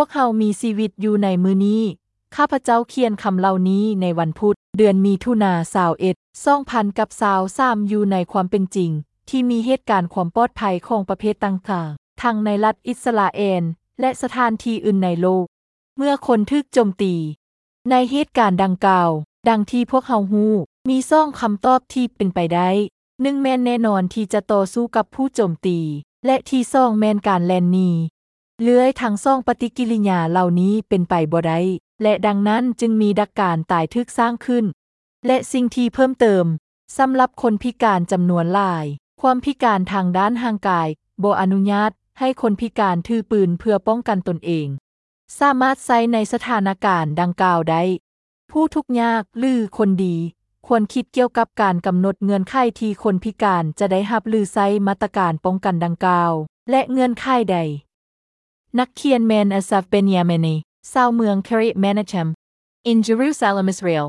ພວກເຮົາມີຊີວິດຢູ່ໃນມື້ນີ້. ຂ້າພະເຈົ້າຂຽນຄຳເຫຼົ່ານີ້ໃນວັນພຸດ, ເດືອນມິຖຸນາ ຊາວເອັດ ສອງພັນກັບຊາວສາມ ຢູ່ໃນຄວາມເປັນຈິງ ທີ່ມີເຫດການຄວາມປອດໄພຂອງປະເພດຕ່າງໆ, ທັງໃນລັດອິດສະຣາແອນ ແລະ ສະຖານທີ່ອື່ນໃນໂລກ. ເມື່ອຄົນຖືກໂຈມຕີ. ໃນເຫດການດັ່ງກ່າວ, ດັ່ງທີ່ພວກເຮົາຮູ້, ມີສອງຄຳຕອບທີ່ເປັນໄປໄດ້. ໜຶ່ງແມ່ນແນ່ນອນທີ່ຈະຕໍ່ສູ້ກັບຜູ້ໂຈມຕີ, ແລະ ທີສອງແມ່ນການແລ່ນໜີ. ເລື່ອຍທັງສອງປະຕິກິລິຍາເຫຼົ່ານີ້ເປັນໄປບໍ່ໄດ້, ແລະ ດັ່ງນັ້ນຈຶ່ງມີດັກການຕາຍຖືກສ້າງຂຶ້ນ. ແລະ ສິ່ງທີ່ເພີ່ມເຕີມ, ສຳລັບຄົນພິການຈຳນວນຫຼາຍ, ຄວາມພິການທາງດ້ານຮ່າງກາຍບໍ່ອະນຸຍາດໃຫ້ຄົນພິການຖືປືນເພື່ອປ້ອງກັນຕົນເອງ. ສາມາດໃຊ້ໃນສະຖານະການດັ່ງກ່າວໄດ້. ຜູ້ທຸກຍາກ ຫຼື ຄົນດີ ຄວນຄິດກ່ຽວກັບການກຳນົດເງື່ອນໄຂທີ່ຄົນພິການຈະໄດ້ຮັບ ຫຼື ໃຊ້ມາດຕະການປ້ອງກັນດັ່ງກ່າວ ແລະ ເງື່ອນໄຂໃດ. ນັກຂຽນແມ່ນ Asaf Benyamini, ຊາວເມືອງ Kiryat Menachem, in Jerusalem, Israel.